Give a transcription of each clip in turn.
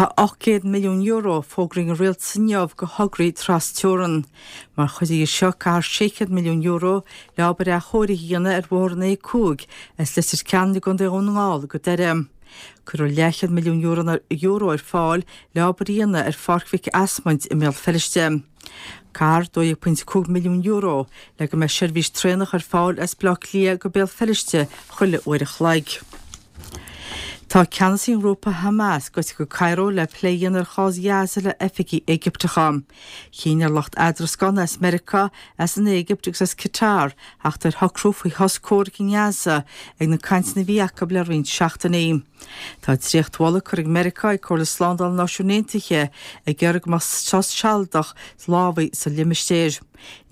Tá €800 milliún fógraithe ag an Rialtas inniu do thograí tras-teorann. Mar chuid dhe seo caithfear €600 milliún le obair athchóirithe a dhéanamh ar bhóthar an A5 as Leitir Ceanainn i gContae Dhún na nGall go Doire. Cuirfear leathchéad milliún euro ar fáil le obair a dhéanamh ar Pháirc Mhic Asmaint i mBéal Feirste. Caithfear €12.5 milliún le go mbeidh seirbhís traenach ar fáil as Baile Átha Cliath go Béal Feirste chuile uair a chloig. Tá ceannasaí an ghrúpa Hamas gaibhte go Cairo le plé a dhéanamh ar chás Ghaza le oifigigh Éigipteacha. Chinn ar lucht eadrascána as Meiriceá, as an Éigipt agus as Qatar theacht ar shocrú faoi shos comhraic i nGaza ag na cainteanna a bhí acu le roinnt seachtainí. Tá dréachtmholadh curtha ag Meiriceá ag Comhairle Slándála na Náisiún Aontaithe ag iarraidh go mbeadh sos sealadach lámhaigh sa limistéar.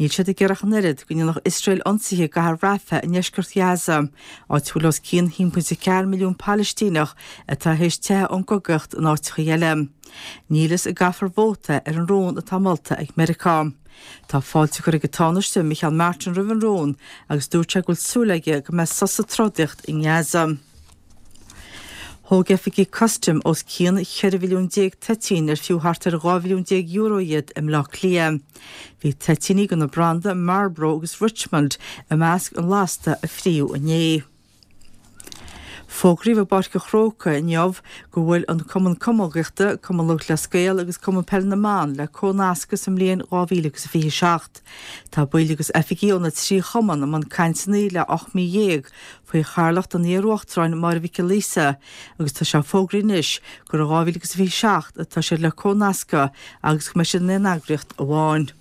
Níl siad ag iarraidh ach an oiread go ndéanfadh Iosrael ionsaithe i gcathair Rafah i ndeisceart Ghaza, áit a bhfuil os cionn 1.4 milliún Palaistíneach atá théis teitheadh ón gcogaíocht in áiteacha eile. Níl fhios an gcaithfear vóta ar an rún atá molta ag Meiriceá. Tá fáilte curtha ag an Tánaiste Micheál Martin roimh an rún agus dúirt sé go bhfuil súil aige go mbeidh sos sa trodaíocht i nGaza. Thóg oifigigh custaim os cionn 14 mhilliún toitín ar fiú thart ar €12 mhilliún iad i mBleá Cliath. Bhí toitíní de na branda Marlboro agus Richmond i measc an lasta a fríodh inné. Fógraíodh i bPáirc an Chrócaigh inniu go bhfuil an Cumann Camógaíochta, Cumann Lúthchleas Gael agus Cumann Peile na mBan le comhnascadh sa mbliain 2027. Tá baill agus oifigigh ó na 3 chumann i mbun cainteanna le 18 mí faoi chathaoirleacht an iar-uachtaráin Máire Mhic Giolla Íosa agus tá sé fógraithe anois gur i 2027 atá siad le comhnascadh agus go mbeidh siad in aon eagraíocht amháin.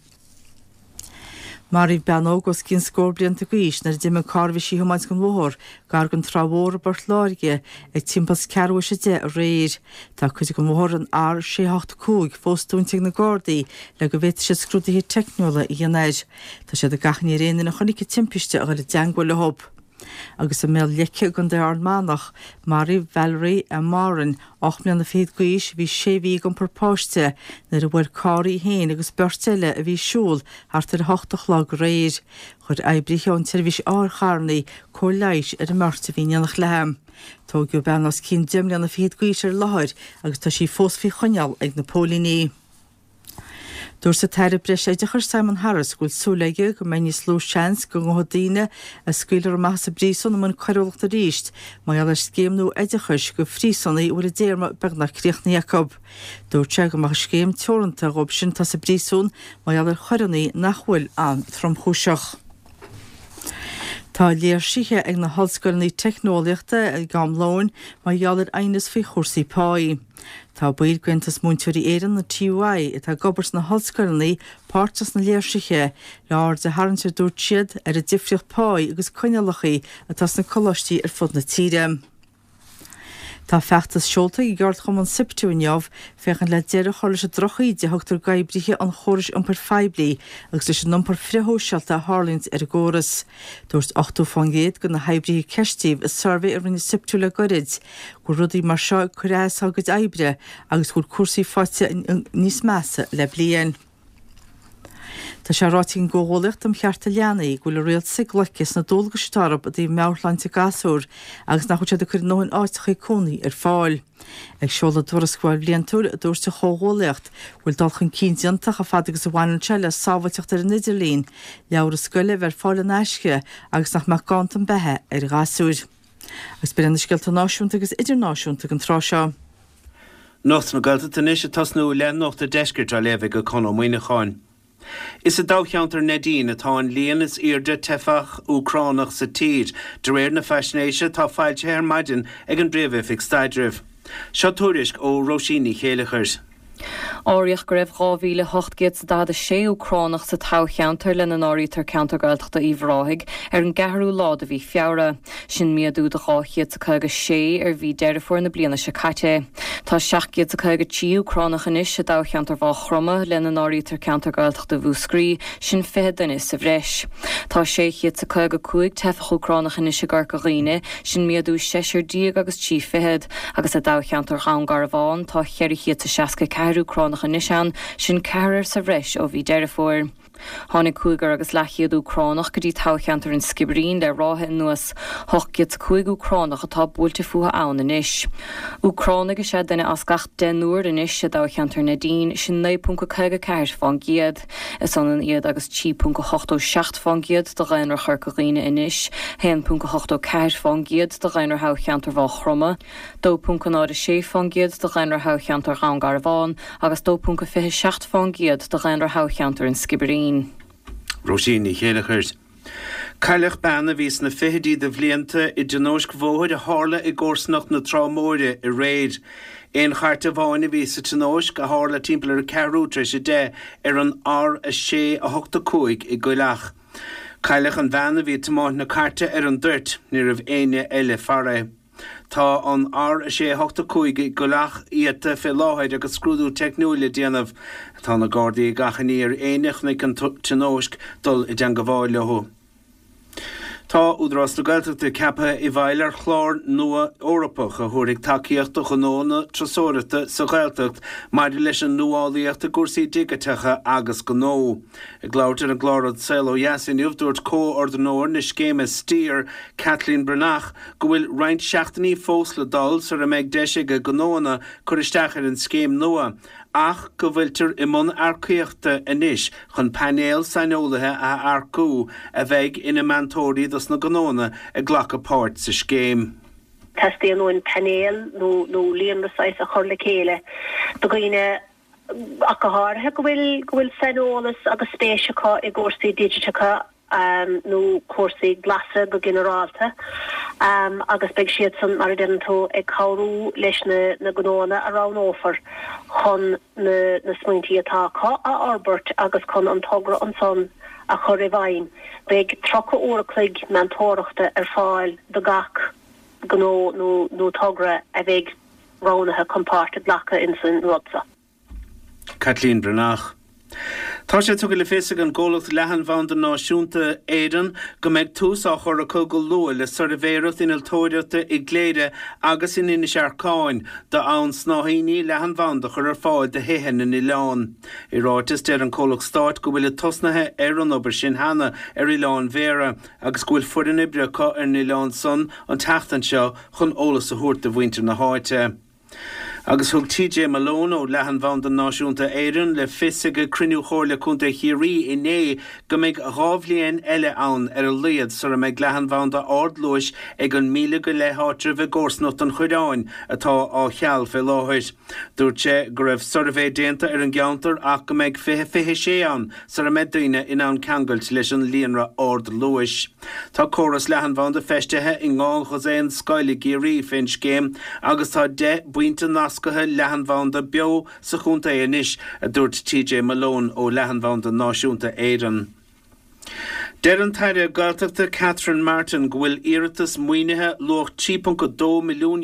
Maraíodh bean óg os cionn scór blianta d'aois nuair a d'imigh an carr a bhí sí a thiomáint den bhóthar gar don Trá Mhór i bPort Láirge ag timpeall is ceathrú théis 10 aréir. Tá cuid den bhóthar an R685 fós dúnta ag na Gardaí le go bhféadfaidh siad scrúduithe teicniúla a dhéanamh air. Tá siad ag achainí ar aon duine a chonaic an timpiste a dhul i dteangmháil leo. Agus i mBéal Leice i gContae Ard Manach, maraíodh Valerie M. Moran, 8 mbliana fichead d'aois, a bhí sé mhí ag iompar páiste, nuair a bhuail carr í féin agus beirt eile a bhí ag siúl thart ar 8 a chlog aréir. Chuir oibrithe ón tseirbhís otharcharranna cóir leighis ar an mbeirt a bhí in éineacht léi. Tóigeadh bean os cionn 10 mbliana fichead d'aois ar an láthair agus tá sí fós faoi choinneáil ag na póilíní. Dúirt an tAire Breis-Oideachais Simon Harris go bhfuil súil aige go mbeidh níos lú seans go ngabhfaidh daoine a scaoilfear amach as an bpríosún i mbun coiriúlachta arís mar gheall ar scéim nua oideachais do phríosúnaigh a bhfuil a dtéarma beagnach críochnaithe acu. Dúirt sé go mbeadh an scéim teoranta dhóibh sin atá sa bpríosún mar gheall ar choireanna nach bhfuil an-tromchúiseach. Tá léirsithe ag na hollscoileanna teicneolaíochta ag am lóin mar gheall ar aighneas faoi chúrsaí páí. Tá baill d'Aontas Múinteoirí Éireann, an TUI, atá ag obair sna hollscoileanna páirteach sna léirsithe, le aird a tharraingt, a dúirt siad, ar an difríocht páí agus coinníollacha atá sna coláistí ar fud na tíre. Tá feachtas seolta ag an gceardchumann Siptu inniu féachaint le deireadh a chur leis an drochíde a thugtar d'oibrithe an chórais iompair phoiblí agus leis an iompar frithshóisialta a tharlaíonns ar an gcóras. Dúirt 80% de na hoibrithe a ceistíodh i suirbhé a rinne Siptu le goirid go bhfuil rudaí mar seo ag cur as dá gcuid oibre agus go bhfuil cúrsaí faighte níos measa le bliain. Tá sé ráite ag an gComhghuallaíocht um Chearta Leanaí go bhfuil an rialtas ag loiceadh sna dualgais atá orthu i dtaobh meabhairshláinte gasúr agus nach bhfuil siad ag cur a ndóthain áiteacha cónaí ar fáil. Ag seoladh a dtuarascáil bhliantúil, dúirt an Chomhghuallaíocht go bhfuil dul chun cinn déanta chomh fada agus a bhaineann sé le sábháilteacht ar an idirlíon, leabhra scoile a bheith ar fáil in aisce agus nach mbeadh ganntan beatha ar ghasúir. Agus b'in iad na scéalta náisiúnta agus idirnáisiúnta don tráth seo. Nuacht na Gaeltachta anois ag tosnú le Nuacht an Deiscirt á léamh ag Conn Ó Muíneacháin. Is i dtoghcheantar Neidín atá an líon is airde teifeach Úcránach sa tír, de réir na faisnéise atá foilsithe ar maidin ag an bPríomh-Oifig Staidrimh. Seo tuairisc ó Róisín Ní Chéileachair. Áiríodh go raibh 2,846 Úcránach sa toghcheantar, lena n-áirítear ceantar Gaeltachta Uíbh Ráthaigh, ar an gceathrú lá de mhí Feabhra. Sin méadú de 256 ar mhí Deireadh Fómhair na bliana seo caite. Tá 753 Úcránach anois i dtoghcheantar Mhaigh Chromtha, lena n-áirítear ceantar Gaeltachta Mhúscraí, sin 20 duine sa bhreis. Tá 655 teifeach Úcránach anois i gCorca Dhuibhne, sin méadú seisear déag agus trí fichead, agus i dtoghcheantar Dhún Garbhán tá 464 Úcránach anois ann, sin ceathrar sa bhreis ó mhí Deireadh Fómhair. Tháinig cúigear agus leathchéad Úcránach go dtí toghcheantar an Sciobairín le ráithe anuas. 805 Úcránach atá buailte fúthu ann anois. Úcránaigh is ea duine as gach deichniúr anois i dtoghcheantar Neidín, sin 9.54 fán gcéad. Is ionann iad agus 3.87 fán gcéad de dhaonra Chorca Dhuibhne anois, 1.84 fán gcéad de dhaonra thoghcheantar Mhaigh Chromtha, 2.06 fán gcéad de dhaonra thoghcheantar Dhún Garbhán agus 2.27 fán gcéad de dhaonra thoghcheantar an Sciobairín. Róisín Ní Chéileachair. Cailleadh bean a bhí sna fichidí de bhlianta i dtionóisc bhóthair a tharla i gcomharsanacht na Trá Móire aréir. Aon chairt amháin a bhí sa tionóisc, a tharla timpeall ar ceathrú tar éis 10 ar an R6 8 5 i gCoill Each. Cailleadh an bhean a bhí ag tiomáint na cairte ar an dtoirt, ní raibh éinne eile farae. Tá an R6 8 5 i gCoill Each iata fé láthair agus scrúdú teicniúil le déanamh. Tá na Gardaí ag achainí ar éinne a chonaic an tionóisc dul i dteangabháil leo. Tá Údarás na Gaeltachta ceaptha i bhfeighil ar chlár nua Eorpach a thabharfaidh tacaíocht do ghnónna turasóireachta sa Ghaeltacht maidir leis an nuálaíocht i gcúrsaí digiteacha agus gnó. Ag labhairt ar an gclár An Saol Ó Dheas inniu, dúirt comhordaitheoir na scéime Steer, Kathleen Breathnach, go bhfuil roinnt seachtainí fós le dul sara mbeidh deis ag gnóanna cur isteach ar an scéim nua ach go bhfuiltear i mbun earcaíochta anois chun painéal saineolaithe a earcú a bheidh ina meantóirí dos na gnóanna ag glacadh páirt sa scéim. Teastaíonn uainn painéal nó líonra saghas a chur le chéile de dhaoine ach go háirithe go bhfuil go bhfuil saineolas agus spéis acu i gcúrsaí digiteacha nó cúrsaí glasa go ginearálta agus beidh siadsan, mar a deireann tú, ag cabhrú leis na na gnóanna a roghnófar chun na na smaointí atá acu a fhorbairt agus chun an togra ansan a chur i bhfeidhm. Beidh 30 uair a chloig meantóireachta ar fáil do gach gnó nó nó togra a bheidh roghnaithe chun páirt a ghlacadh ins an rud seo. Caitlín Breathnach. Tá sé tugtha le fios ag an gcomhlacht Leathanbhanda Náisiúnta Éireann go mbeidh tús á chur acu go luath le suirbhéireacht innealtóireachta i gCléire agus in Inis Earcáin d'fhonn snáithíní leathanbhanda a chur ar fáil do thithe na n-oileán. I ráiteas, deir an comhlacht stáit go bhfuilid tosnaithe ar an obair sin cheana ar Oileán Bhéarra agus go bhfuil foireann oibre acu ar an oileán san an tseachtain seo chun eolas a thabhairt do mhuintir na háite. Agus thug TJ Malone ó Leathanbhanda Náisiúnta Éireann le fios ag cruinniú Chomhairle Contae Chiarraí inné go mbeidh 2 bhliain eile ann ar a laghad sara mbeidh leathanbhanda ardluais ag an 1,000 go leith áitreabh i gcomharsanacht an Choireáin atá á cheal fé láthair. Dúirt sé go raibh suirbhé déanta ar an gceantar ach go mbeidh 2026 ann sara mbeidh daoine in ann ceangailt leis an líonra ardluais. Tá córas leathanbhanda feistithe i ndhá dhosaen scoil i gCiarraí fén scéim agus tá 10 bpointe nasctha leathanbhanda beo sa chontae anois, a dúirt TJ Malone ó Leathanbhanda Náisiúnta Éireann. Deir an tAire Gaeltachta Catherine Martin go bhfuil iarratas maoinithe luach €3.2 milliún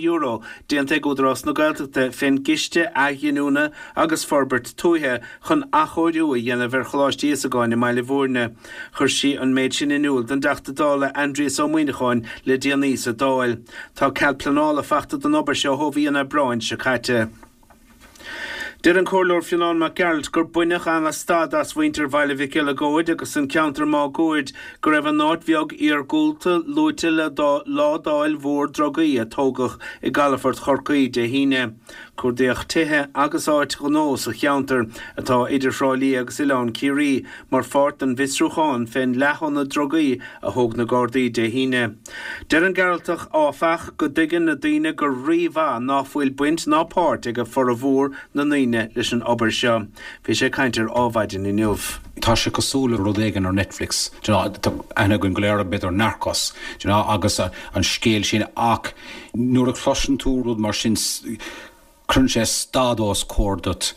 déanta ag Údarás na Gaeltachta fén gCiste Athghiniúna agus Forbairt Tuaithe chun athchóiriú a dhéanamh ar Choláiste Íosagáin i mBaile Bhúirne. Chuir sí an méid sin in iúl don dTeachta Dála Aindrias Ó Muimhneacháin le déanaí sa Dáil. Tá cead pleanála fachta don obair seo ó mhí an Aibreáin seo caite. Deir an Comhairleoir Fionnán Mac Gearailt gur baineadh ana-stad as mhuintir Bhaile Mhic Eileagóid agus an ceantar máguaird go raibh an áit bheag iargúlta luaite le ládáil mhór drugaí a tógadh i gcalafort Chorcaí Dé hAoine. Cuardaíodh tithe agus áit ghnó sa cheantar, atá idir Thrá Lí agus Oileán Ciarraí, mar pháirt den bhfiosrúchán fén leath-ionad drugaí a thóg na Gardaí Dé hAoine. Deir an Gearaltach, áfach, go dtuigeann na daoine go rí-mhaith ná fuil baint ná páirt ag formhór na ndaoine leis an obair seo. Bhí sé ag caint ar Ádhmhaidin inniu. Tá sé cosúil le rud éigin ar Netflix, do you know, tá aithne againn go léir b'fhéidir ar Narcos, do you know, agus an scéal sin ach Nuair a chloiseann tú rud mar sin, cuireann sé stad os comhair duit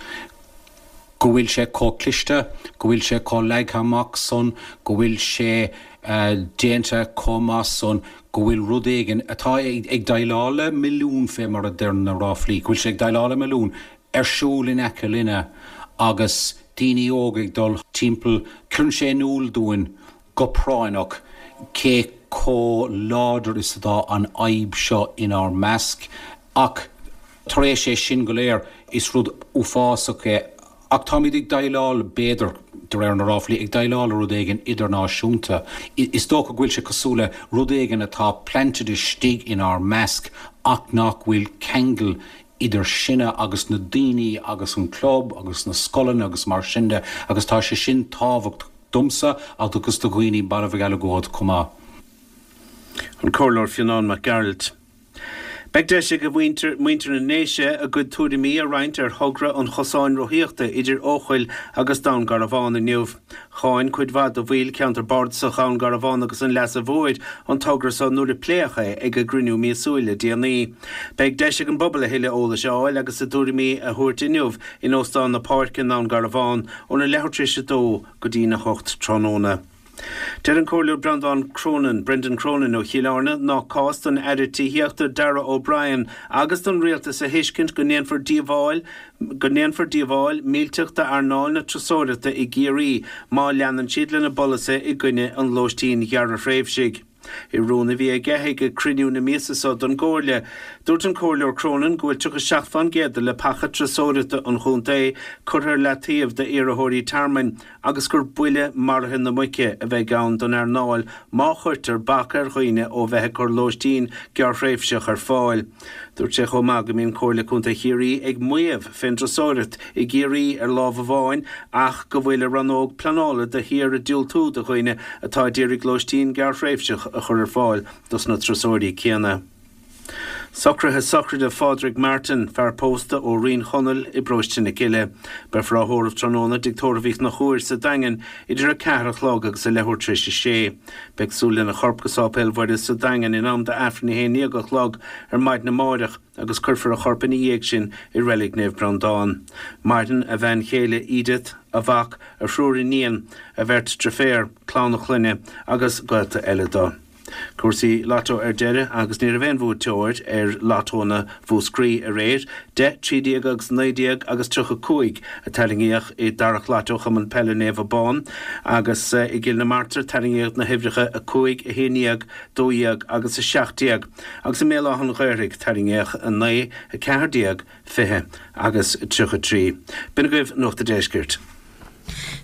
go bhfuil sé chomh cliste, go bhfuil sé chomh leagtha amach san, go bhfuil sé déanta chomh maith san, go bhfuil rud éigin atá ag déileáil le milliún fé mar a deir na ráflaí, go bhfuil sé ag déileáil le milliún ar siúl in aice linne agus daoine óga ag dul timpeall. Cuireann sé in iúl dúinn go práinneach cé chomh láidir is atá an fhadhb seo inár measc ach tar éis é sin go léir is rud uafásach é. Ach táimid ag déileáil, b'fhéidir, de réir na ráflaí, ag déileáil le rud éigin idirnáisiúnta. Is dócha go bhfuil sé cosúil le rud éigin atá planted istigh inár measc ach nach bhfuil ceangal idir sinne agus na daoine agus an club agus na scoileanna agus mar sin de agus tá sé sin tábhachtach domsa agus do dhaoine Baile Mhic Eileagóid chomh maith. An Comhairleoir Fionán Mac Gearailt. Beidh deis ag muintir na nDéise a gcuid tuairimí a roinnt ar thogra an chosáin rothaíochta idir Eochaill agus Dún Garbhán inniu. Cháin cuid mhaith de bhaill cheantar bardasach Dhún Garbhán agus an Leasa Mhóir an togra so nuair a pléadh é ag a gcruinniú míosúil le déanaí. Beidh deis ag an bpobal a thuilleadh eolais a fháil agus a dtuairimí a thabhairt inniu in Óstán na Páirce i nDún Garbhán óna leathuair tar éis a dó go dtína hocht tráthnóna. Deir an Comhairleoir Breandán Cronin, Brendan Cronin, ó Chill Airne nach cás don Aire Tithíochta Darragh O'Brien agus don Rialtas a thuiscint go ndéanfar díobháil go ndéanfar díobháil millteach d'earnáil na turasóireachta i gCiarraí má leanann siad lena bpolasaithe i gcoinne an lóistín ghearrthréimhsigh. I rún a bhí aige ag cruinniú na míosa seo don gComhairle, dúirt an Comhairleoir Cronin go bhfuil 37 fán gcéad de leapacha turasóireachta an chontae curtha ar leataobh d'iarrthóirí tearmainn agus gur buille maraithe na muice a bheidh ann don earnáil má chuirtear bac ar dhaoine ó bheith ag cur lóistín gearrthréimhseach ar fáil. Dúirt sé chomh maith go mbíonn Comhairle Contae Chiarraí ag maíomh fén dturasóireacht i gCiarraí ar lámh amháin ach go bhfuil a rannóg pleanála de shíor ag diúltú do dhaoine atá a d'iarraidh lóistín gearrthréimhseach a chur ar fáil dos na turasóirí céanna. Socruithe sochraide Phádraig Martin, fear pósta ó Rinn Chonaill i bparóiste na Cille. Beifear á thórramh tráthnóna i dTigh Tórraimh Uí Chonchúir sa Daingean idir 4 a chlog agus a leathuair tar éis a sé. Beidh súil lena chorp go Sáipéal Mhuire sa Daingean in am d'Aifreann 11 a chlog ar maidin amáireach agus cuirfear a chorp ina dhiaidh sin i Reilig Naomh Breandán. Maireann a bhean chéile Edith, a mhac, a thriúr iníon, a bheirt driféar, clann a chlainne agus gaolta eile dó. Cúrsaí Lotto ar deireadh agus ní raibh aon bhuaiteoir ar Lottónna Mhúscraí aréir. 10, 13 agus 19 agus 35 a tarraingíodh i dtarrac Lotto Chumann Peile Naomh Abán agus i gCill na Martra tarraingíodh na huimhreacha 5, 11, 12 agus 17 agus i mBéal Átha an Ghaorthaidh tarraingíodh 9, 14, 20 agus 33. B'in agaibh Nuacht a' Deiscirt.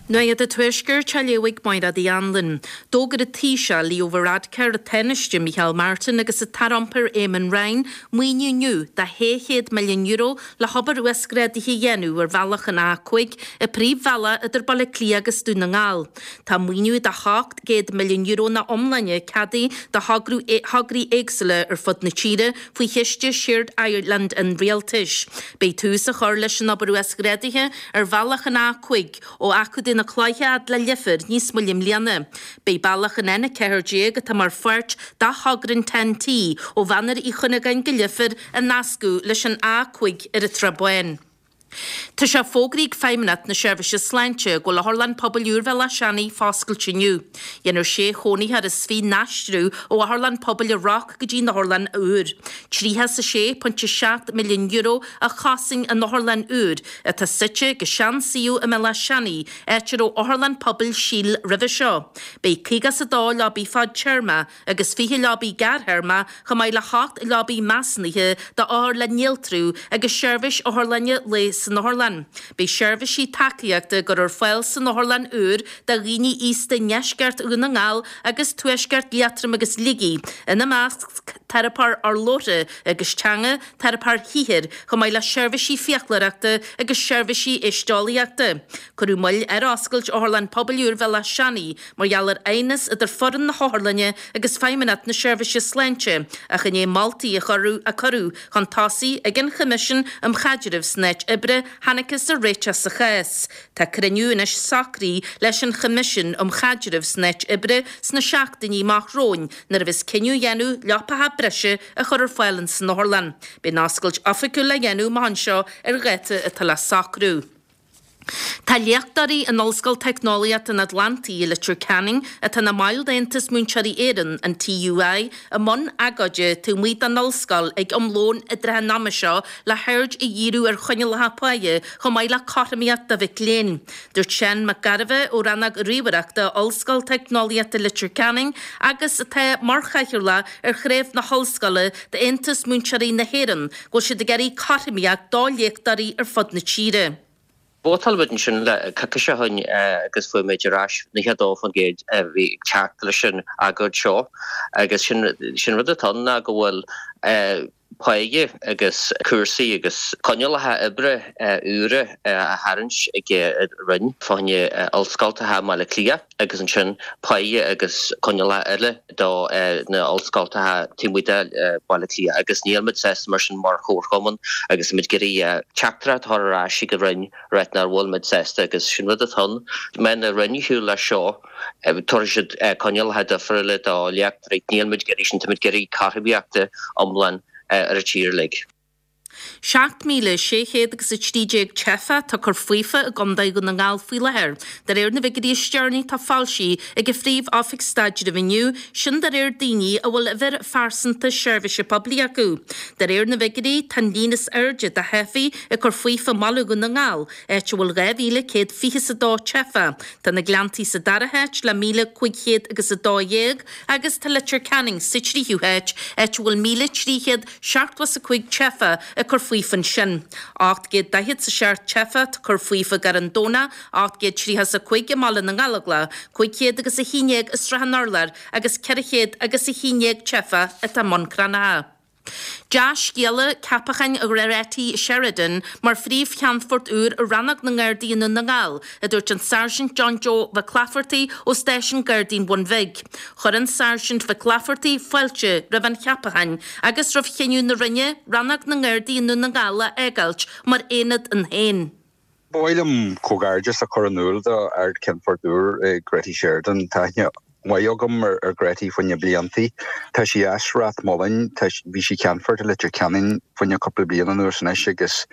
Nuacht an Tuaiscirt á léamh ag Máire Uí Anluain. D'fhógair an Taoiseach Leo Varadkar, an Tánaiste Micheál Martin agus an tAire Iompair Eamon Ryan maoiniú inniu de €600 milliún le hobair uasghrádaithe a dhéanamh ar bhealach an A5, an príomhbhealach idir Baile Átha Cliath agus Dún na nGall. Tá maoiniú de €700 milliún ina iomláine ceadaithe do thograí éagsúla ar fud na tíre faoi chiste Shared Ireland an Rialtais. Beidh tús á chur leis an obair uasghrádaithe ar bhealach an A5 ó Achadh na Cloiche fhad le Leifear níos moille i mbliana. Beidh bealach an N14 atá mar pháirt de thogra an TEN-T ó Mhachaire Uí Chuinneagáin go Leifear a nascadh leis an A5 ar an tSrath Bán. Tá sé fógraithe ag Feidhmeannacht na Seirbhíse Sláinte go bhfuil Otharlann Pobail úr Bhéal Átha Seanaidh foscailte inniu. Dhéanfar sé chónaitheoir is 20 n-aistriú ó Otharlann Pobail an Roc go dtí an otharlann úr. €36.7 milliún a chosain an otharlann úr, atá suite ag an sean-suíomh i mBéal Átha Seanaidh, áit a raibh Otharlann Pobail Síl roimhe seo. Beidh 52 leabaidh fadtéarma agus 20 leabaidh gearrthéarma chomh maith le hocht leabaidh measúnaithe d'othair le néaltrú agus seirbhís otharlainne lae san otharlann. Beidh seirbhísí tacaíochta á gcur ar fáil san otharlann úr do dhaoine aosta i ndeisceart Dhún na nGall agus tuaisceart Liatroim agus Shligigh, ina measc teiripeoir urlabhra agus teanga, teiripeoir shaothair, chomh maith le seirbhísí fiaclóireachta agus seirbhísí éisteolaíochta. Cuireadh moill ar oscailt Otharlann Pobail úr Bhéal Átha Seanaidh mar gheall ar aighneas idir foireann na hotharlainne agus Feidhmeannacht na Seirbhíse Sláinte ach i ndiaidh moltaí a cuireadh chun tosaigh ag an Choimisiún um Chaidreamh san Áit Oibre thángthas ar réiteach sa chás. Tá cruinniú anois socraithe leis an Choimisiún um Chaidreamh san Áit Oibre sna seachtainí amach romhainn nuair a bheas cinneadh á dhéanamh leapacha breise a chur ar fáil ins an otharlann. Beidh an oscailt oifigiúil le dhéanamh amach anseo ar dháta atá le socrú. Tá léachtóirí in Ollscoil Teicneolaíochta an Atlantaigh i Leitir Ceanainn, atá ina mbaill d'Aontas Múinteoirí Éireann, an TUI, i mbun agóide taobh amuigh den ollscoil ag am lóin i dtrátha an ama seo le haird a dhíriú ar choinníollacha páighe chomh maith le cothromaíocht do mhic léinn. Dúirt Seán Mac Gairbheith ó Rannóg Ríomhaireachta Ollscoil Teicneolaíochta Leitir Ceanainn agus atá mar chathaoirleach ar chraobh na hollscoile d'Aontas Múinteoirí na hÉireann, go bhfuil siad ag iarraidh cothromaíocht do léachtóirí ar fud na tíre. Vótáil muid ansin le coicís ó shin agus fuair muid ar ais 92% a bhí ag teacht leis an agóid seo agus sin sin rud atá ann ná go bhfuil páighe agus cúrsaí agus coinníollacha oibre úra á tharraingt ag an Roinn fá choinne ollscoltacha i mBaile Átha Cliath agus ansin páighe agus coinníollacha eile do na ollscoltacha taobh amuigh de Bhaile Átha Cliath agus níl muid sásta mar sin mar chomharchumann agus muid ag iarraidh teachtaireacht a chur ar ais ag an Roinn ráit nach bhfuil muid sásta agus sin rud atá ann. Má théann an Roinn ar shiúl leis seo tabharfaidh siad coinníollacha difriúla do léachtóirí. Níl muid ag iarraidh sin, tá muid ag iarraidh cothromaíochta iomlán ar an tír uilig. 7,600 agus 13 teifeach atá ag cur faofa i gContae Dhún na nGall faoi láthair, de réir na bhfigiúirí is deireanaí atá foilsithe ag an Phríomh-Oifig Staidrimh inniu, sin de réir daoine a bhfuil uimhir phearsanta seirbhíse poiblí acu. De réir na bhfigiúirí, tá an líon is airde de theifigh ag cur faofa i mbaile Dhún na nGall, áit a bhfuil 2,122 teifeach. Tá na Gleanntaí sa dara háit le 1,500 agus 12 agus tá Leitir Ceanainn sa tríú háit, áit a bhfuil 1,375 teifeach ag cur faofa ansin. 847 teifeach atá ag cur faofa i gCarn Domhnach, 835 i mBaile na nGallóglach, 500 agus 11 i Srath an Urláir agus 400 agus 11 teifeach atá i mBun Cranncha. Dea-scéala, ceapachán Ghretty Sheridan mar phríomh-cheannfort úr ar Rannóg na nGardaí i nDún na nGall, a dúirt an Sáirsint John Joe Mhic Laifeartaigh ó Stáisiún Gardaí an Bhun Bhig. Chuir an Sáirsint Mhic Laifeartaigh fáilte roimh an cheapachán agus roimh chinneadh na Roinne Rannóg na nGardaí i nDún na nGall a fhágáilt mar aonad ann féin. Ba mhaith liom comhghairdeas a chur in iúl do Ard-Cheannfort úr Gretty Sheridan. Tá aithne mhaith agam ar Gretty faoi na bliantaí. Tá sí as Ráth Moliain, bhí sí Ceannfort i Leitir Ceanainn fá choinne cúpla bliain anuas anois agus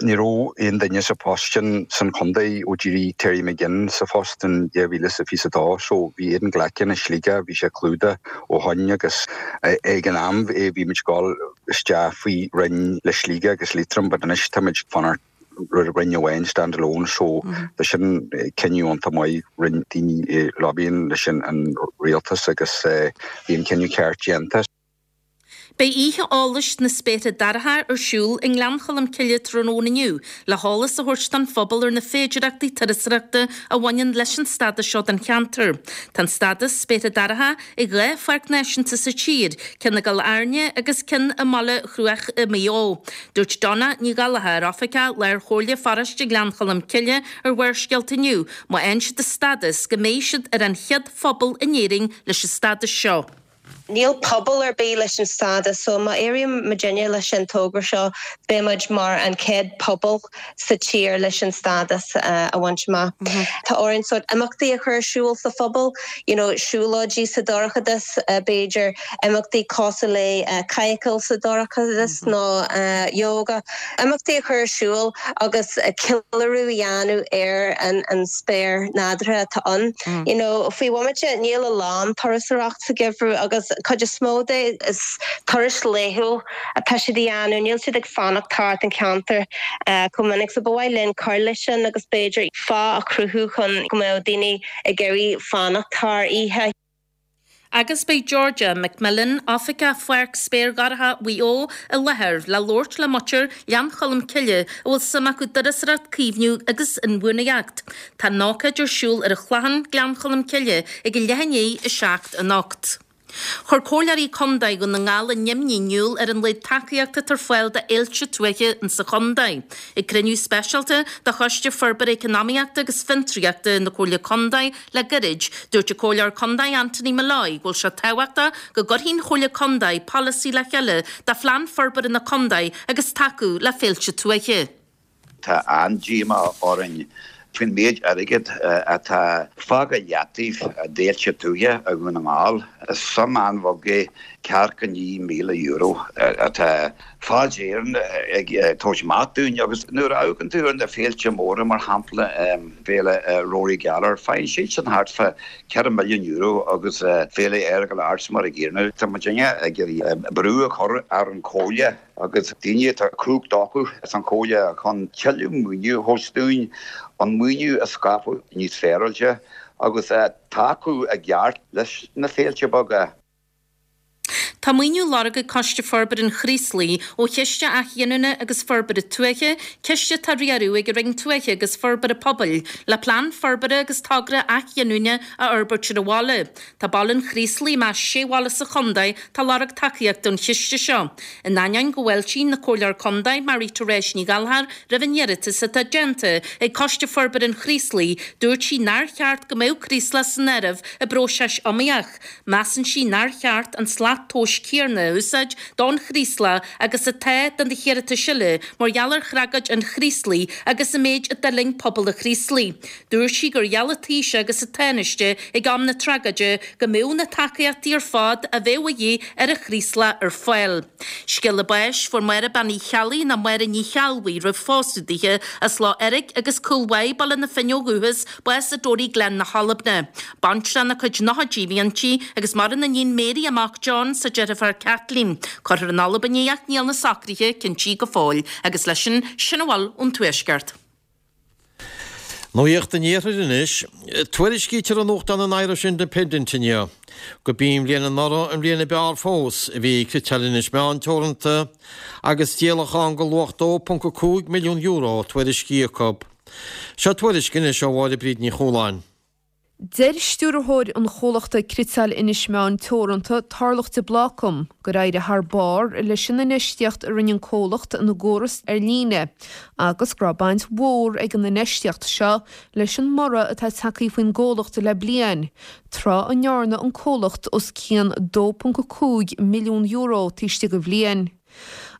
ní raibh aon duine sa phost sin san chontae ó d'éirigh Terry McGinn sa phost in 2022 so bhí Aidan Glackin i Sligeach, bhí sé clúdaithe ó shoin agus ag an am bhí muid ag dul isteach faoi roinn le Sligeach agus Liatroim but anois tá muid ag fanacht roinn amháin stand alone so tá sin cinneadh iontach maith rinne daoine lobbying leis an rialtas agus bhí an cinneadh ceart déanta. Beidh oíche eolais na Spéartha Dorcha ar siúl i nGleann Cholm Cille tráthnóna inniu le heolas a thabhairt don phobal ar na féidearthachtaí turasóireachta a bhaineann leis an stádas seo don cheantar. Tá an stádas Spéartha Dorcha ag 2 pháirc náisiúnta sa tír, ceann i gCill Airne agus ceann i mBaile Chruaich i Maigh Eo. Dúirt Donna Ní Ghallchóir, Oifigeach Lár-Chomhairle Pharóiste Ghleann Cholm Cille ar Bharrscéalta inniu, má fhaigheann siad an stádas, go mbeidh siad ar an chéad phobal in Éirinn leis an stádas seo. Níl pobal ar bith leis an stádas so má éiríonn muidinne leis an togra seo beidh muid mar an chéad pobal sa tír leis an stádas a bhaint amach. Tá orainn sórt imeachtaí a chur ar siúl sa phobal, you know siúlóidí sa dorchadas b'fhéidir, imeachtaí cosúil le cadhcáil sa dorchadas nó yoga, imeachtaí a chur ar siúl agus ceiliúradh a dhéanamh ar an spéir nádúrtha atá ann. You know, faoi bhomaite níl a lán turasóireacht sa gheimhreadh agus cuid is mó de is turais laethúil atá siad a dhéanamh, níl siad ag fanacht thart an ceantar chomh minic so ba mhaith linn cur leis sin agus b'fhéidir fáth a chruthú chun go mbeadh daoine ag iarraidh fanacht thar oíche. Agus beidh Georgia McMillan, Oifigeach Pháirc Spéir Dhorcha Mhaigh Eo, i láthair le labhairt le muintir Ghleann Cholm Cille a bhfuil suim acu i dturasóireacht, caomhnú agus inbhuanaitheacht. Tá an ócáid ar siúl ar an Chlochán, Gleann Cholm Cille, ag a leath i ndiaidh 7 anocht. Chuir Comhairleoirí Contae Dhún na nGall a n-imní in iúl ar an laghad tacaíochta atá ar fáil do fhéilte tuaithe insa chontae. Ag cruinniú speisialta de Choiste Forbartha Eacnamaíochta agus Fiontraíochta na Comhairle Contae Le gairid, dúirt an Comhairleoir Contae Anthony Molloy go bhfuil sé tábhachtach go gcuirfidh an Chomhairle Contae polasaí le chéile do phlean forbartha na contae agus tacú le féilte tuaithe. Tá an-díomá orainn faoin méid airgid atá fágtha i leataobh d'fhéilte tuaithe i Dhún na nGall. Is suim an-bheag é ceathracha €9,000 atá Fáilte Éireann ag tabhairt amach dúinn agus nuair a amharcann tú ar na féilte móra, mar shampla Féile Rory Gallagher, faigheann siadsan thart fá €4 milliún agus Féile Earagail Arts mar a gcéanna. Tá muidinne ag iarraidh brú a chur ar an Chomhairle agus daoine atá cumhacht acu san Chomhairle chun tuilleadh maoiniú a thabhairt dúinn, an maoiniú a scaipeadh níos féaráilte agus tacú i gceart leis na féilte beaga. Tá maoiniú á lorg ag Coiste Forbartha an Chraoslaigh ó Chiste Athghiniúna agus Forbartha Tuaithe, ciste atá á riaradh ag an Roinn Tuaithe agus Forbartha Pobail, le plean forbartha agus togra athghiniúna a fhorbairt ar an bhaile. Tá baile an Chraoslaigh i measc sé bhaile sa chontae atá ag lorg tacaíochta ón chiste seo. In ainneoin go bhfáiltíonn an Comhairleoir Contae, Marie Therese Ní Ghallchóir, roimh an iarratas atá déanta ag Coiste Forbartha an Chraoslaigh, dúirt sí nár cheart go mbeadh Craoslach san áireamh i bpróiseas iomaíoch. Measann sí nár cheart an slat tomhais céanna a úsáid don Chraoslach agus atá do na hiarratais eile mar gheall ar thragóid an Chraoslaigh agus an méid a d'fhulaing pobal an Chraoslaigh. Dúirt sí gur gheall an Taoiseach agus an Tánaiste ag am na tragóide go mbeadh na tacaíochtaí ar fad a bheadh a dhíth ar an Chraoslach ar fáil. Scéala báis, Fuair Máire Bean Uí Cheallaigh nó Máire Ní Cheallbhuí roimh phósadh dithe, as Loch Eirg agus Cúil Mhaigh, Baile na Finne ó dhúchas, bás i dToryglen na hAlban. Baintreach ina cuid nóchaidí a bhí inti agus maireann a níon Mary, a mac John 's a deirfiúr Kathleen. Cuirfear in Albain í ach níl na socruithe cinntí go fóill. Agus leis sin, sin a bhfuil ón Tuaisceart. Nuacht an Iarthair anois. Tuairiscítear i nuachtán an Irish Independent inniu gurb í an bhliain anuraidh an bhliain ab fhearr fós a bhí ag Cniotáil Inis Meáin Teoranta agus díolachán de luach €2.5 milliún tuairiscithe acu. Seo tuairisc anois ó Mháire Bríd Ní Chualáin. Deir stiúrthóir an chomhlachta Cniotáil Inis Meáin Teoranta, Tarlach de Blácam, gur éirigh thar barr leis an infheistíocht a rinne an comhlacht ina gcóras ar líne agus go raibh baint mhór ag an infheistíocht seo leis an mborradh atá tagtha faoin gcomhlacht le bliain, tráth a ndearna an comhlacht os cionn €2.5 milliún taobh istigh de bhliain.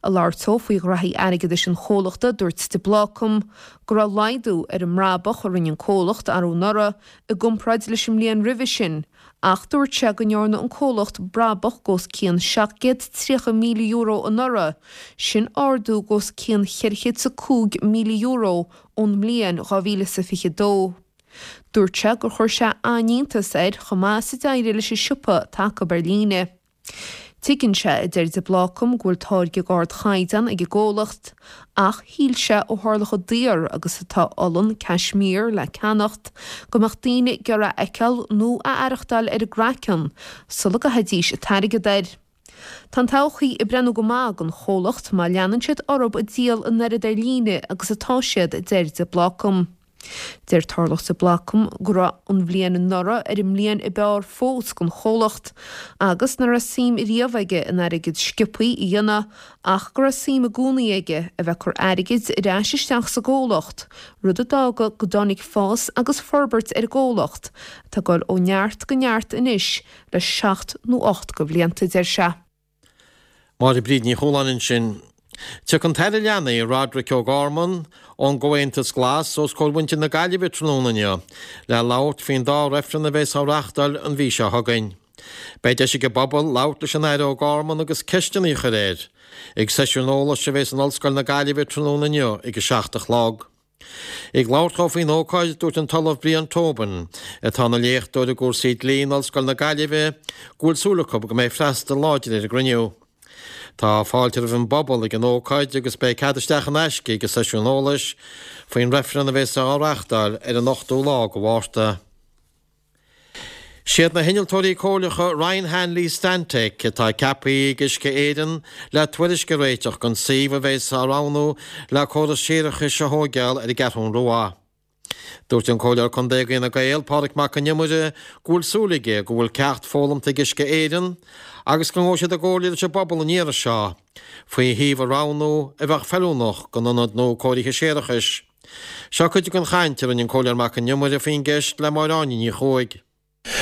Ag labhairt dó faoi ghraithí airgeadais an chomhlachta, dúirt de Blácam go raibh laghdú ar an mbrabach a rinne an comhlacht arú anuraidh i gcomparáid leis an mbliain roimhe sin ach dúirt sé go ndearna an comhlacht brabach d'os cionn €730,000 anuraidh, sin ardú d'os cionn €405,000 ón mbliain 2022. Dúirt sé gur chuir sé an-iontas air chomh maith is a d'éirigh leis an siopa atá acu ar líne. Tuigeann sé, a deir de Blácam, go bhfuil táirge d'ardchaighdeán ag an gcomhlacht, ach shíl sé ó tharla chomh daor agus atá olann Cashmere le ceannacht, go mbeadh daoine ag iarraidh a fheiceáil nó a aireachtáil ar a gcraiceann sula gcaithfidís an t-airgead air. Tá an todhchaí ag breathnú go maith don chomhlacht má leanann siad orthu ag díol an oiread ar líne agus atá siad, a deir de Blácam. Deir Tarlach de Blácam go raibh an bhliain anuraidh ar an mbliain ab fhearr fós don chomhlacht agus nach raibh suim riamh aige in airgead sciobthaí a dhéanamh ach go raibh suim i gcónaí aige a bheith ag cur airgid ar ais isteach sa gcomhlacht, rud a d'fhága go dtáinig fás agus forbairt ar an gcomhlacht atá ag dul ó neart go neart anois le seacht nó 8 de bhlianta, deir sé. Máire Bríd Ní Chualáin ansin. Tiocfaidh an tAire Leanaí, Roderic O'Gorman, ón gComhaontas Glas os comhair mhuintir na Gaillimhe tráthnóna inniu le labhairt faoin dá reifreann a bheas á reáchtáil an mhí seo chugainn. Beidh deis ag an bpobal labhairt leis an Aire O'Gorman agus ceisteanna a chur air ag seisiún eolais a bheas in Ollscoil na Gaillimhe tráthnóna inniu ag a 7 a chlog. Ag labhairt dó faoin ócáid, dúirt an tOllamh Brian Tobin, atá ina léachtóir i gcúrsaí dlí in Ollscoil na Gaillimhe, go bhfuil súil acu go mbeidh freastal láidir ar an gcruinniú. Tá fáilte roimh an bpobal ag an ócáid agus beidh cead isteach in aisce ag an seisiún eolais faoin reifreann a bheas á reáchtáil ar an 8ú lá de Mhárta. Siad na hinnealtóirí comhairleacha Ryan Hanley Stantec atá ceaptha ag Uisce Éireann le tuairisc a réiteach don suíomh a bheas á roghnú le córas séarachais a thóigeáil ar an gCeathrún Rua. Dúirt an Comhairleoir Contae d'Fhine Gael, Pádraig Mac Con Iomaire, go bhfuil súil aige go bhfuil ceacht foghlamta ag Uisce Éireann agus go ngabhfaidh siad i gcomhairle leis an bpobal an iarraidh seo faoi shuíomh a roghnú a bheadh feiliúnach don ionad nua cóirithe séarachais. Seo cuid den chaint a rinne an Comhairleoir Mac Con Iomaire faoin gceist le Máire Áine Ní Chuaig.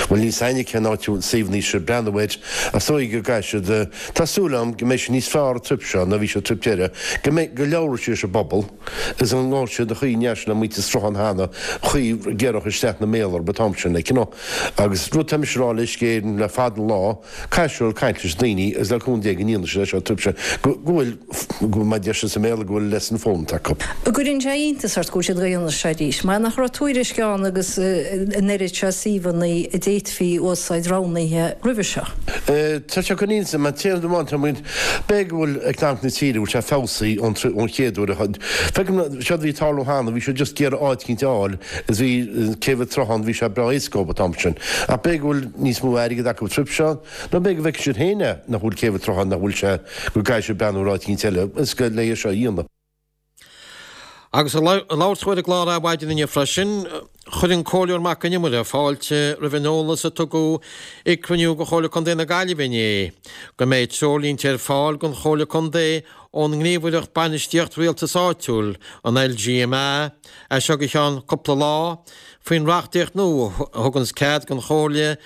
Bhuel, níl 's a'inne cén áit a bhfuil suíomhanna seo ag breathnú air, ach is dóigh go gcaithfidh siad, tá súil agam go mbeidh siad níos fearr an trip seo ná bhí siad an trip deireadh, go mbeidh, go labhróidh siad leis an bpobal agus go ngabhfaidh siad an chaoi a ndearna siad le muintir Sruthán cheana, an chaoi a gcuirfeadh isteach na méala orthu an t-am sin, like, you know. Agus rud tá mise a rá le Uisce Éireann le fada an lá, Caithfidh siad caint leis na daoine agus le cúnamh Dé go ndéanfaidh siad é seo an trip seo go bhfuil, go bhfuil, mar a deir siad sa mBéarla, go bhfuil lesson foghlamtha acu. An gcuireann sé iontas ort go bhfuil siad ag déanamh seo arís? Mar nach raibh tuairisc ann agus an oiread seo suíomhanna? a d'fhéadfaí a úsáid roghnaithe roimhe seo. Tá sé chun inse, mar téann amháin tá muid, b'fhéidir go bhfuil eacnamaíocht na tíre, bhfuil sé feabhsaithe ón ón chéad uair a feicim seo a bhí ag tarlú cheana, bhí siad just ag iarraidh áit eicínt a fháil is bhí céibh an tsrutháin, bhí sé breá éasca dóibh an t-am sin. Ach b'fhéidir go bhfuil níos mó airgid acu an trip seo, nó b'fhéidir go bhfeicfidh siad féin é, nach bhfuil céibh an tsrutháin, nach bhfuil sé, go gcaithfidh siad breathnú ar áit eicínt eile, is go le é seo a dhéanamh. Agus ag labhairt dó ar an gclár Adhmhaidin inniu freisin, chuir an Comhairleoir Mac Con Iomaire fáilte roimh an eolas a tugadh ag cruinniú de Chomhairle Contae na Gaillimhe inné go mbeidh treoirlínte ar fáil don Chomhairle Contae ón nGníomhaireacht Bainistíocht Rialtais Áitiúil, an LGMA, as seo go ceann cúpla lá, faoin reachtaíocht nua a thuganns cead don Chomhairle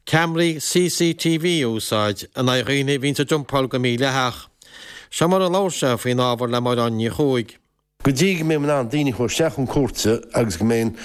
ceamaraí CCTV a úsáid in aghaidh dhaoine a bhíonns ag dumpáil go mídhleathach. Seo mar a labhair sé faoin ábhar le Máire Áine Ní Chuaig. Go dtí go mbeidh in ann daoine a chur isteach chun cúirte agus go mbeidh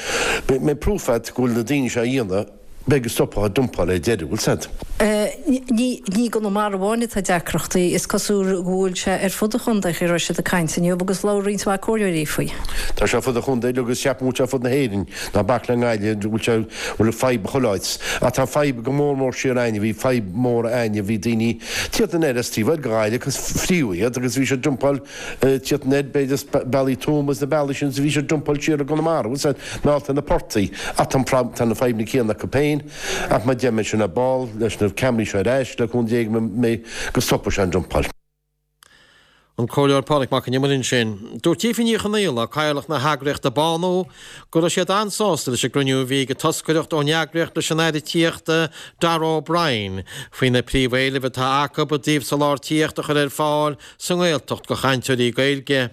mbeidh proof agat go bhfuil na daoine seo á dhéanamh, beidh go stopfá an dumpáil ar deireadh, bhfuil 's agat. Ní i gConamara amháin atá deacrachtaí, is cosúil go bhfuil sé ar fud an chontae, a raibh siad ag caint inniu agus labhair roinnt mhaith comhairleoirí faoi. Tá sé ar fud an chontae agus ceapaim go bhfuil sé ar fud na hÉireann. Ná bac le nGaillimh, go bhfuil sé, bhfuil fadhb chuile áit. Ach tá fadhb go mór mór siar a'inne, bhí fadhb mór a'inne, bhí daoine tíocht anoir as taobh thoir de Ghaillimh agus fríodh iad agus bhí siad dumpáil tíocht anoir b'fhéidir as bealaí Tuama is na bealaí sin is bhí siad dumpáil siar i gConamara, bhfuil 's a'd, meallta na portaigh. Ach tá an tá na fadhbanna céanna acu féin ach má deir mé sin ar ball leis na ceamaraí seo ar ais le cúnamh Dé go mbeidh go stopfaidh sé an dumpáil. An Comhairleoir Pádraig Mac Con Iomaire ansin. Dúirt Aoife Ní Chonaola, Cathaoirleach na heagraíochta Bánú, go raibh siad an-sásta leis an gcruinniú a bhí ag an toscaireacht ón eagraíocht leis an Aire Tithíochta Darragh O'Brien faoi na príomhéilimh atá acu i dtaobh soláthar tithíochta a chur ar fáil sa nGaeltacht do chainteoirí Gaeilge.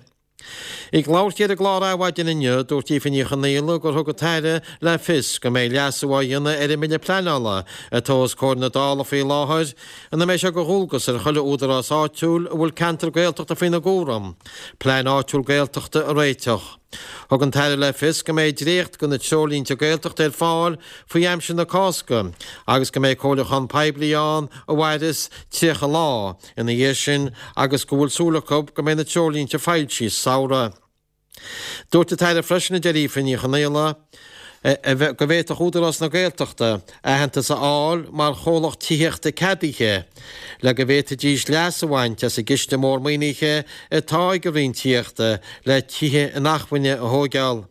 Ag labhairt di ar an gclár Adhmhaidin inniu, dúirt Aoife Ní Chonaola gur thug an tAire le fios go mbeidh leasú á dhéanamh ar an mBille Pleanála atá os comhair na Dála faoi láthair ina mbeidh sé de dhualgas ar chuile údarás áitiúil a bhfuil ceantar Gaeltachta faoina gcúram, plean áitiúil Gaeltachta a réiteach. Thug an tAire le fios go mbeidh dréacht de na treoirlínte Gaeltachta ar fáil faoi aimsir na Cásca agus go mbeidh comhairliúchán poiblí ann a mhairfeas 30 lá. ina dhiaidh sin agus go bhfuil súil acu go mbeidh na treoirlínte foilsithe sa samhradh. Dúirt an tAire freisin, a deir Aoife Ní Chonaola, go bhféadfadh Údarás na Gaeltachta aitheantas a fháil mar chomhlacht tithíochta ceadaithe le go bhféadfaidís leas a bhaint as an gciste mór maoinithe atá ag an Roinn Tithíochta le tithe inacmhainne a thóigeáil.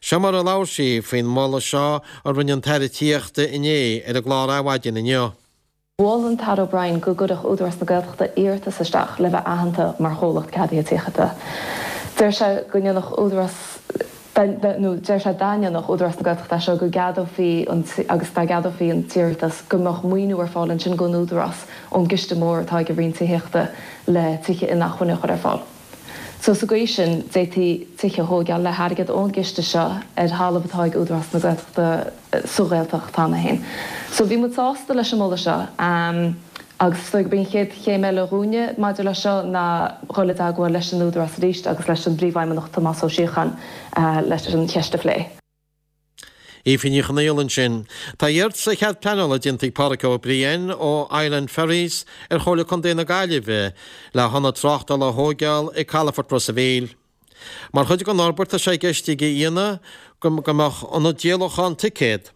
Seo mar a labhair sí faoin moladh seo a rinne an tAire Tithíochta inné ar an gclár Adhmhaidin inniu. Mhol an tAire O'Brien go gcuirfeadh Údarás na Gaeltachta iarratas isteach le bheith aitheanta mar chomhlacht ceadaithe tithíochta. Deir sé go ndéanfadh Údarás nó deir sé dá ndéanfadh Údarás na Gaeltachta é seo go gceadófaí an agus dá gceadófaí an t-iarratas go mbeadh maoiniú ar fáil ansin don Údarás ón gciste mór atá ag an Roinn Tithíochta le tithe inacmhainne a chur ar fáil. So sa gcaoi sin, d'fhéadfaí tithe a thóigeáil le hairgead ón gciste seo ar thalamh atá ag Údarás na Gaeltachta sa Ghaeltacht cheana féin. So bhí muid sásta leis an moladh seo agus is dóigh gurb í an chéad chéim eile dhúinne maidir leis seo ná dhul i dteagmháil leis an Údarás arís agus leis an bPríomhfheidhmeannach Tomás Ó Síocháin leis an cheist a phlé. Aoife Ní Chonaola ansin. Tá iarratas ar chead pleanála déanta ag Pádraic Ó Briain ó Island Ferries ar Chomhairle Contae na Gaillimhe le hionad tráchtála a thóigeáil ag Calafort Ros a' Mhíl. Mar chuid den fhorbairt tá sé i gceist aige a dhéanamh go mbeadh ionad díolachán ticéad,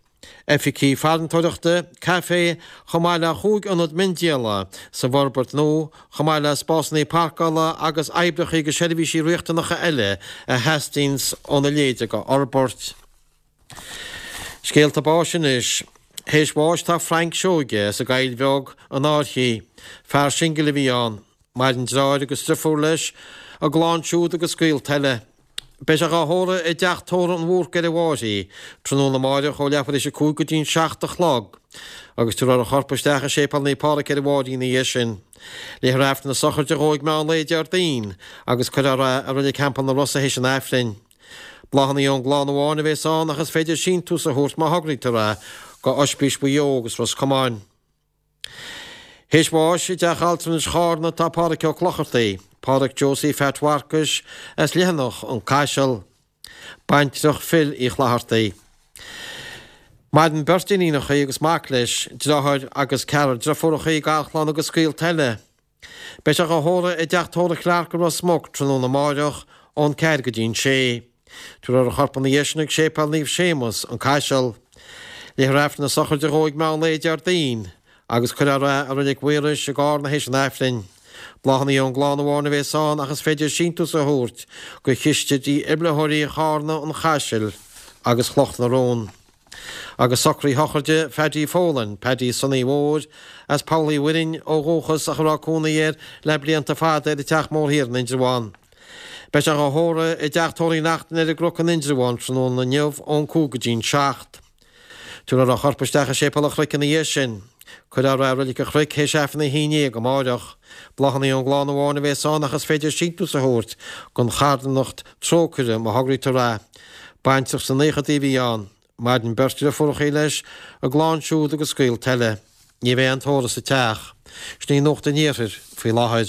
oifigí farantóireachta, caifé, chomh maith le chúig ionad miondíola sa bhforbairt nua, chomh maith le spásanna páirceála agus oibreacha agus seirbhísí riachtanacha eile a theastaíonns óna leithéid de fhorbairt. Scéalta báis anois. Théis bháis tá Frank Seoige as an gCoill Bheag, an Fhairche. Fear singil a bhí ann. Maireann deartháir agus driofúr leis, a gclann siúd agus gaolta eile. Beidh sé dhá thórramh i dteach tórraimh an Bhúrcaigh ar an bhFairche, tráthnóna amáireach ó leathuair théis 5 go dtí'n 7 a chlog, agus tabharfar a chorp isteach i Séipéal Naomh Pádraig ar an bhFairche ina dhiaidh sin. Léifear Aifreann na sochraide dhó ag meán lae Déardaoin, agus cuirfear é i Reilig Theampall na Rosa théis an Aifrinn. Bláthanna ón gclann amháin a bhéas ann ach is féidir síntiús a thabhairt má thograítear é go Oispís Mhaigh Eo agus Ros Comáin. Théis bháis i dTeach Altranais Chárna tá Pádhraic Ó Clochartaigh, Pádhraic Josie Pheait Mharcais as Leathanach an Caiseal, baintreach Phil Uí Chlathartaigh. Maireann beirt iníonacha agus mac leis, deartháir agus ceathrar driofúracha, garchlann agus gaolta eile. Beidh sé dhá thórramh i dTeach Tórraimh Clarke i Ros Muc tráthnóna amáireach ón 4 go dtí'n 6. Tabharfar a chorp ina dhiaidh sin ag Séipéal Naomh Séamus, An Caiseal. Léifear Aifreann na sochraide dhó ag meán lae Déardaoin agus cuirfear é i Reilig Mhaorais i gCarna théis an Aifrinn. Bláthanna ón gclann amháin a bhéas ann ach is féidir síntiús a thabhairt go chiste dífhibrileoirí Charna, an Chaisil agus Chloch na Rón. Agus socruithe sochraide Phaddy Folan, Paddy Sonaí Mhóir, as Poll Uí Mhuirinn ó dhúchas ach a raibh cónaí air le blianta fada ar an Teach Mór Thiar in Indreabhán. Beidh sé dhá thórramh i dTeach Tórraimh Uí Neachtain ar an gCnoc in Indreabhán tráthnóna inniu ón 5 go dtí'n 7. Tabharfar a chorp isteach i Séipéal an Chnoic ina dhiaidh sin. Cuirfear é i Reilig an Chnoic théis Aifreann a 11 amáireach. Bláthanna ón gclann amháin a bhéas ann ach is féidir síntiús a thabhairt don charthanacht Trócaire má thograítear é. Baintreach sna naochadaí a bhí ann. Maireann beirt dhriofúrachaí leis, a gclann siúd agus gaolta eile. Ní bheidh aon tórramh sa teach. Sin í Nuacht an Iarthair faoi láthair.